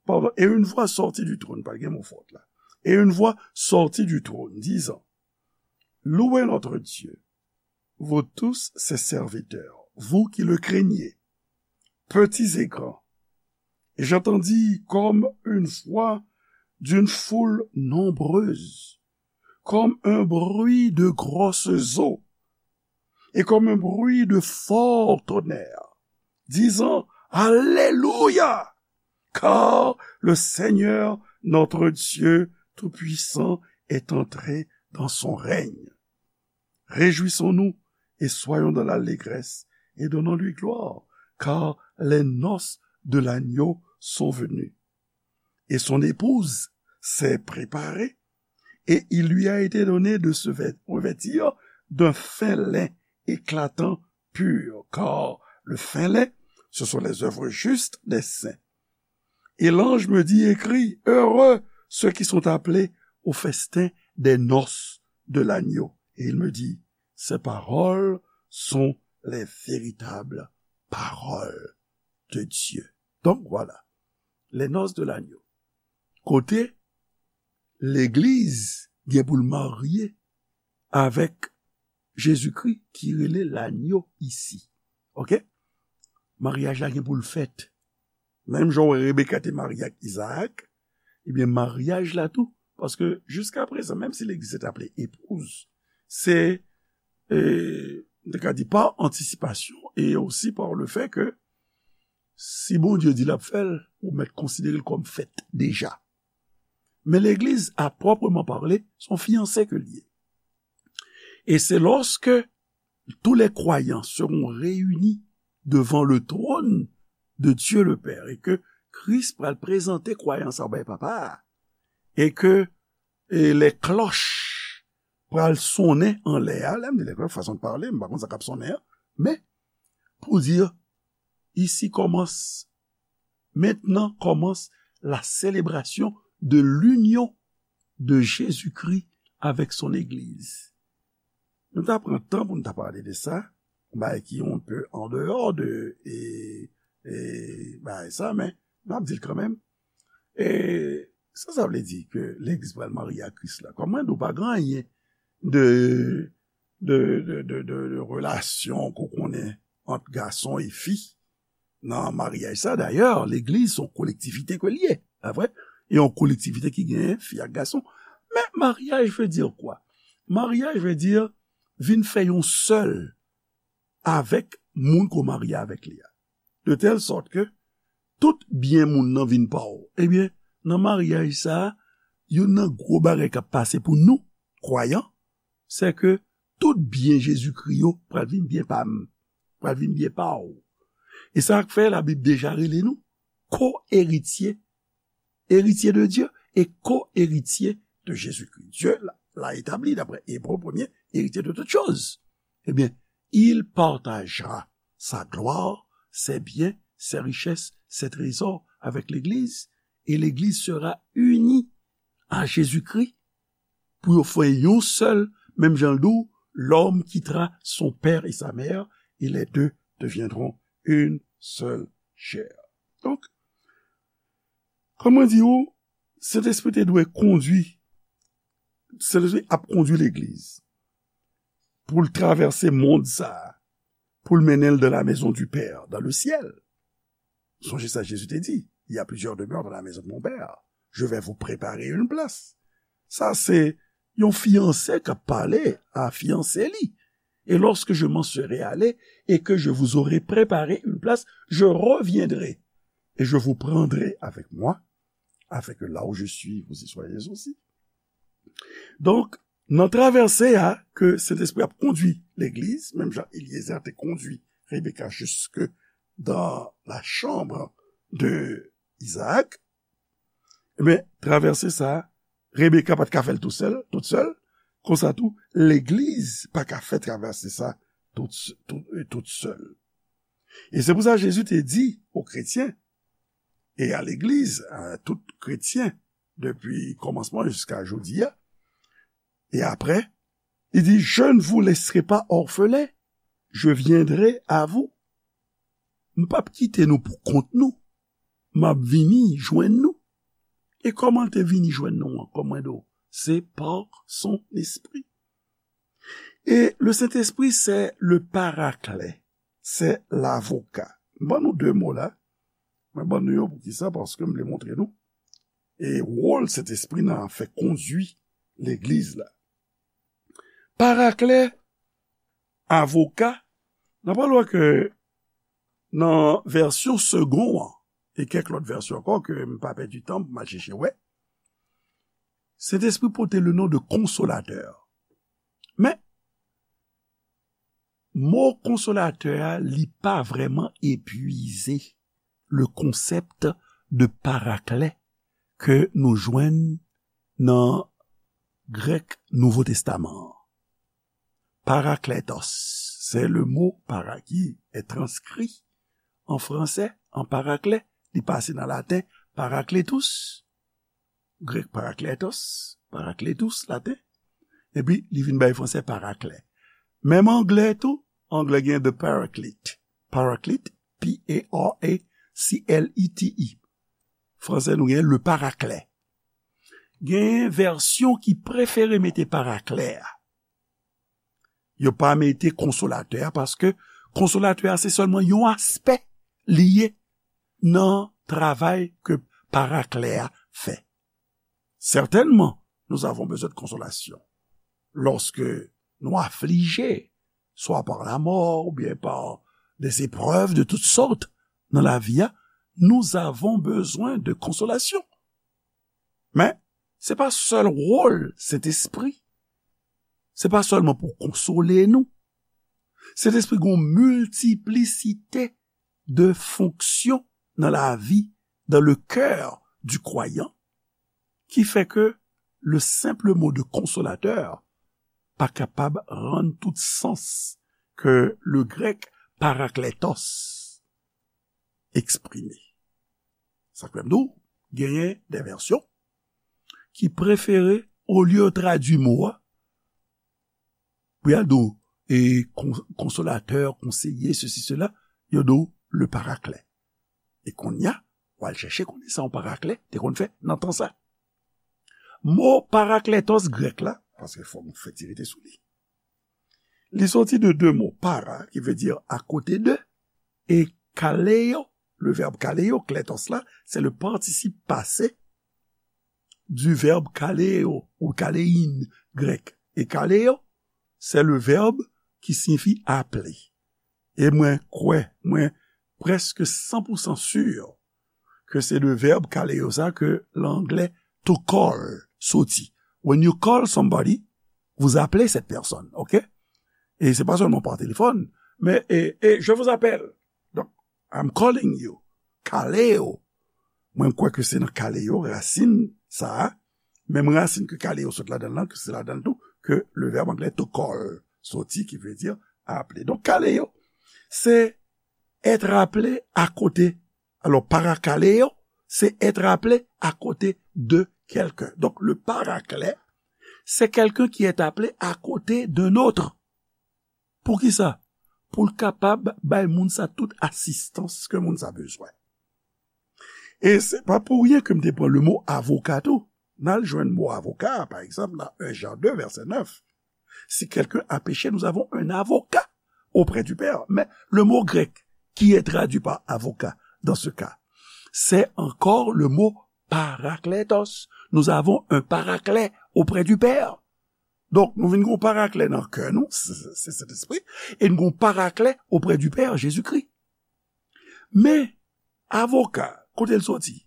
pardon, et une voix sortit du trône, pa gen mo fòt la. Et une voix sortit du trône, disant, Louez notre Dieu, vous tous ses serviteurs, vous qui le craignez, petits et grands. Et j'entendis comme une voix d'une foule nombreuse, comme un bruit de grosses eaux, et comme un bruit de fort tonnerre, disant, Alléluia, car le Seigneur, notre Dieu Tout-Puissant, est entré dans son règne. Réjouissons-nous et soyons dans l'allégresse et donnons-lui gloire, car les noces de l'agneau sont venues. Et son épouse s'est préparée, et il lui a été donné de se vêt-, revêtir d'un fin lin éclatant, pur, car le fin lin, ce sont les œuvres justes des saints. Et l'ange me dit, Écris, heureux ceux qui sont appelés au festin des noces de l'agneau. Et il me dit, ces paroles sont les véritables paroles de Dieu. Donc voilà, les noces de l'agneau. Kote legliz gen pou l marye avèk Jezikri ki rele lanyo isi. Oke? Maryaj la gen pou l fèt. Menm jan w wè Rebeka te marye ak Izaak, ebyen, maryaj la tou, paske jiska prezan, menm si legliz te aple epouz, se, e, nou ka di pa antisipasyon, e osi pa le fè ke si Bondye di l ap fè l, ou mèt konsidere l kòm fèt deja. Men legliz, a pwòpman pale, se yon fiyanse ke l ye. Et c'est lorsque tous les croyants seront réunis devant le trône de Dieu le Père et que Kris pral prezante kwayan sa yo bay papa a, e ke, e, les cloches pral sonnen anlè a, lè m di les cloches, fason de parler, m pa konn sa k ap sonnen an, men pou di, ici commence, maintenant commence la célébration de l'union de Jésus-Christ avec son Église. Nou ta pran tan pou nou ta pale de sa, yon bagay ki yon pe an deyò de, e, e, bagay sa, men m ap di l kanmenm. E sa, sa vle di ke legliz pral marye ak Kris la. Kòm mwen di w, pa gen anyen de, de, de, de, de, de relasyon ke w konnen ant gason e fi nan maryaj sa. Dayè, legliz se yon kolektivite ke l ye, pa vre? E yon kolektivite ki genyen fi ak gason. Men maryaj vle di kwa? Maryaj vle di vin fè yon sèl avèk moun ke w marye avèk li a. De tèl sòt ke tout byen moun nan vin pa w. Ebyen, nan maryaj sa a, youn nan gwo bagay k ap pase pou nou, kwayan, se ke tout byen Jezikri yo pral vin byen pa m, pral vin byen pa w. E sa k fè Labib deja rele nou ko-eritye, héritier de Dieu et co-héritier de Jésus-Christ. Dieu l'a, l'a établi, d'après Hébreux premier, héritier de toutes choses. Eh bien, il partagera sa gloire, ses biens, ses richesses, ses trésors avec l'Église, et l'Église sera unie à Jésus-Christ pou yo fè yon sèl, menm jan l di w, l'homme quittera son père et sa mère, et les deux deviendront une seule chair. Donk, kòm mwen di w, Sentespri te dwe kondui, Sentespri ap kondui legliz pou l travèse mond sa a, pou l mennen l dans la maison du Père, dans le ciel. Sonje sa Jezi te di, il y a plusieurs demeures dans la maison de mon Père. Je vais vous préparer une place. Sa se yon fiyanse k ap pale a fiyanse li. Et lorsque je m'en serai allé et que je vous aurai préparé une place, je reviendrai et je vous prendrai avec moi, afin que là où je suis, vous y soyez aussi. Donk, nan travèse a ke Sentespri ap kondui legliz, menm jan Eliezer te kondui Rebeka jusque dans la chambre de Isaac, ebyen, travèse sa a, Rebeka pa t ka fè l tou sèl, tout sèl, konsa tou, legliz pa ka fè travèse sa tout, tout, tout sèl. E se pou sa Jezi te di o kretyen e a legliz, a tout kretyen, depi kòmansman jiska jodi a, e apre, li di, je ne vous laisserai pas orphelins, je viendrai à vous. M p ap kite nou pou kont nou. M ap vini jwenn nou. E kòman l te vini jwenn nou an? Kòm mwen di w, se pa son espri. E le Sentespri, se le parakle, se lavoka. M ban nou de mo la. Mwen ban nou yo poukisa? Paske m vle montre nou e wòl Sentespri nan fè kondui legliz la. Parakle, avoka, n ap wè ke nan vèsyon Segond an, e kèk lòt vèsyon ankò ke m pa pèdi tan pou m al chèche wè, Sentespri pote le non de konsolatè. Men, mo konsolatè a, li pa vrèman epuize le konsèp de parakle ke nou jwenn nan grèk Nouvo Testaman an. Parakletos, c'est le mot para qui est transcrit en français en paraclet, li pase nan laten parakletos, grèk parakletos, parakletos, laten, Epi, li vin bay fransè paraklè. Menm anglè tou, anglè gen the paraclete. Paraclete, P A R A C L E T E. Fransè, nou gen le paraclet. Gen vèsyon ki prefere mete paraklè a. Yo pa mete konsolatè a, paske konsolatè a se sèlman yon aspè li ye nan travay ke paraklè a fè. Certainement, nous avons besoin de consolation lorsque nous affligés, soit par la mort ou bien par des épreuves de toutes sortes dans la vie, nous avons besoin de consolation. Men, se pa sèl wòl Sentespri. Se pa sèlman pou konsole nou. Sentespri gen yon miltiplisite de fonksyon nan lavi, dans le cœur du croyant, ki fè ke le simple mot de consolateur pa kapab rann tout sans ke le grèk parakletos eksprime. Sa k fè m di w, genyen de vèsyon ki prefere, olye yo tradui mo a, pou y al di w, e, kon-, konsolatè, konseye, sesi, sela, yo di w le paraklet. E kounye a, w al chèche konnen sa yon paraklet te konn fè nan tan sa. Mo parakletos grèk la, paske fò m fè ti rete sou li. Li soti de de mo, para, ki vle di akote de, e kaleo, le verbe kaleo, kletos la, se le partisip pase du verbe kaleo ou kalein grèk. E kaleo, se le verbe ki siyifi aple. E mwen kwè, mwen prèske san pou san si ke se de vèb kaleo sa ke anglè to call soti. When you call somebody, vous appelez cette personne, ok? E se pa sèlman pa telefòn, men, e, e, je vous appelle. Donk, I'm calling you. Kaleo. Mwen kwè ke se nan kaleo, rasin sa a, menm rasin ke kaleo sot ladan l lan, ke se ladan l tou, ke le verbe anglais to call soti, ki vle di aple. Donk, kaleo, se être appelé à côté. Alors, parakaleo, c'est être appelé à côté de quelqu'un. Donc, le paraclet, c'est quelqu'un qui est appelé à côté d'un autre. Poukisa? Pou l kapab bay moun sa tout asistans ke moun sa bezwen. E se pa pou ryen ke m te pran le mo avoka tou. N al jwenn mo avoka, pa egzanp, nan un Jean deux, verset neuf. Si quelqu'un a péché, nous avons un avocat auprès du Père. Mais le mot grec qui est traduit par avocat dans ce cas, c'est encore le mot parakletos. Nous avons un paraclet auprès du Père. Donk, nou vin gen yon paraklet nan kè nou, se, se, se Sentespri, e nou gen yon paraklet auprès du Père, Jésus-Christ. Men, avoka, kote l soti?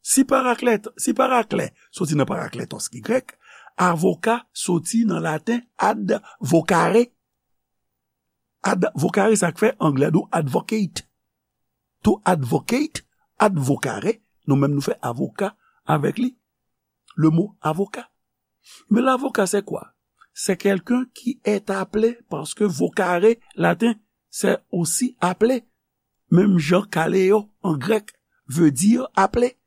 Si paraklet, si paraklet soti nan parakletos ki grèk, avoka soti nan laten ad vocare. Ad vocare, sa k fè anglè di w advocate. To advocate, ad vocare, nou menm nou fè avoka avèk li. Le mot avocat. Mais l'avocat, c'est quoi? C'est quelqu'un qui est appelé parce que vocare, latin, c'est aussi appeler. Menm jan kaleo an grèk veut dire appeler.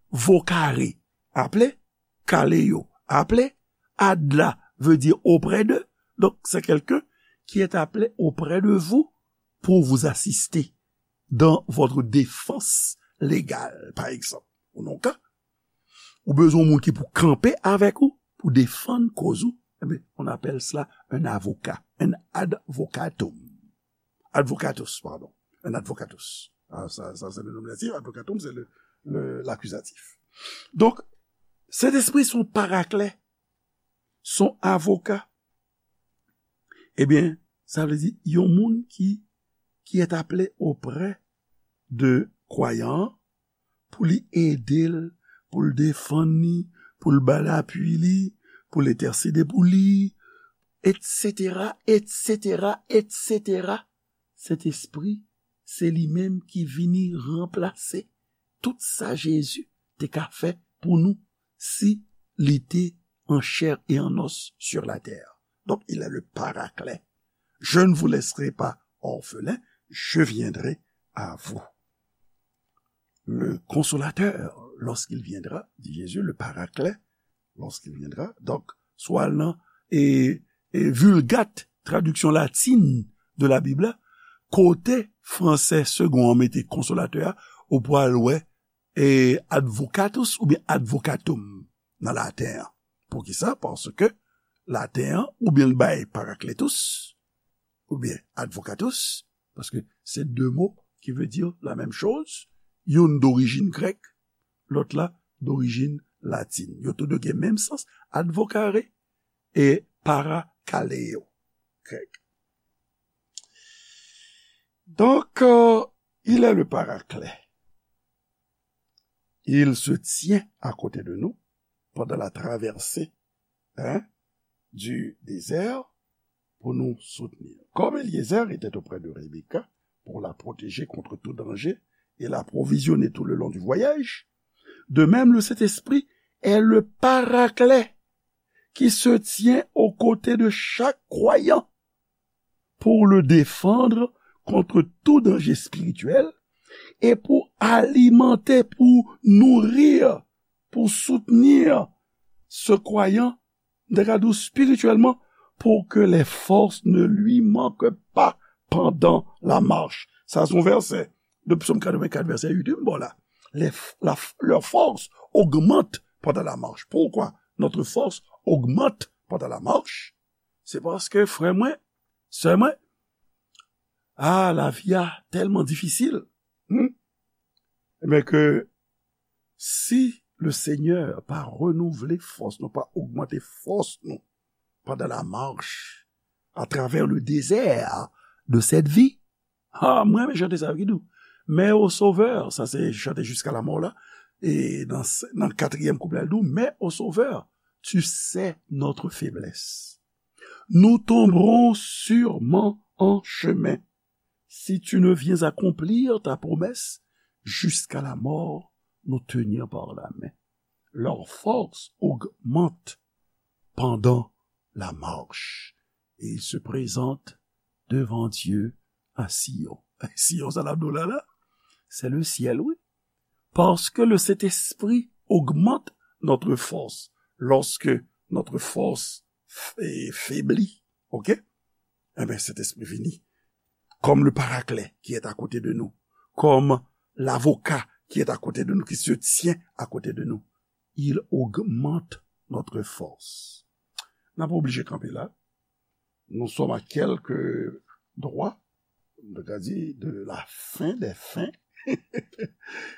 Vocare, appeler. Kaleo, appeler. Ad la veut dire auprès de. Donc, c'est quelqu'un qui est appelé auprès de vous pour vous assister dans votre défense légale, par exemple. Ou nan ka, ou bezwen yon moun ki pou kanpe avèk ou, pou defann koz ou, eh bien, on appelle cela un avocat, un advocatum. Advocatus, pardon. Un advocatus. Ah, ça, ça, c'est le nominatif. Advocatum, c'est le, le, l'accusatif. Donc, Sentespri se yon paraklet, se yon avoka. Ebyen, sa vle di, yon moun ki, qui est appelé auprès de kwayan an, pou li ede l, pou l defann li, pou l ba l apui li, pou l entèsede pou li, et cetera, et cetera, et cetera. Sentespri, se li menm ki vini ranplase tout sa Jezi te ka fè pou nou si li te en chair et en os sur la terre. Donc, il est le paraclet. Je ne vous laisserai pas orphelins, je viendrai à vous. Le consolateur, lorsqu'il viendra, dit Jésus, le paraclet, lorsqu'il viendra. Donk, si w al nan e, e Vulgate, tradiksyon latin de la Bib la, kote fransè segon an mete konsolatè a, ou pral wè, e advocatus oubyen advocatum nan laten an. Poukisa? Paske laten an, oubyen l bay parakletus, oubyen advocatus, paske se de mo ki vle di la menm choz, youn dorijin grèk, lòt la dorijin latin. Yo tou de gen menm sans, advocare e parakaleo, grèk. Donc, euh, il est le paraclet. Il se tient à côté de nous pendant la traversée, hein, du désert pour nous soutenir. Comme Éliézer était auprès de Rebecca pour la protéger contre tout danger et l'approvisionner tout le long du voyage, de même le Saint-Esprit est le paraclet qui se tient aux côtés de chaque croyant pour le défendre contre tout danger spirituel et pour alimenter, pour nourrir, pour soutenir ce croyant, de spirituellement, pour que les forces ne lui manquent pas pendant la marche. Sa se yon vèsè de Psaume quatre-vingt-quatre, vèsè uit, m ba w la. Les, la, leur force augmente pendant la marche. Pourquoi notre force augmente pendant la marche? Se paske, frè mwen, sè mwen, ah, lavi a tèlman difisil. Hmm? Ebyen ke si le Seigneur pa renouvle fòs nou, pa ogmante fòs nou pandan la marche à travers le désert de cette vie, ah, mwen renmen chante sa yo ki di w, mais au Sauveur, sa se chante Jusqu'à la mort la, e nan, nan katriyèm kouplè l di w, mais au Sauveur, tu sais notre faiblesse. Nous tomberons sûrement en chemin. Si tu ne viens accomplir ta promesse, jusqu'à la mort, nous tenir par la main. Leur force augmente pendant la marche. Et ils se présentent devant Dieu à Sion. Sion, sa la, la, la, c'est le ciel, oui. Parce que le Saint-Esprit augmente notre force. Lorsque notre force f-, est faiblie, ok? Eh bien, Saint-Esprit vini comme le paraclet qui est à côté de nous, comme l'avocat qui est à côté de nous, qui se tient à côté de nous. Il augmente notre force. N ap oblije kanpe la. Nous sommes à quelques droits, on a dit, de la fin des fins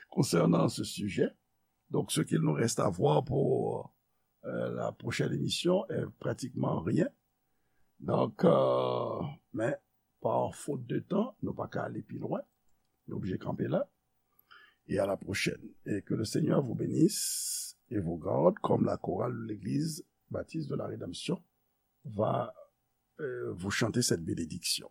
concernant ce sujet. Donc, ce qu'il nous reste à voir pour euh, la prochaine émission est pratiquement rien. Donc, euh, mais par faute de temps, nou pa ka ale pi lwen. Nou oblije kanpe la. Et à la prochaine. Et que le Seigneur vous bénisse et vous garde comme la chorale de l'église baptiste de la Rédemption va euh, vous chanter cette bénédiction.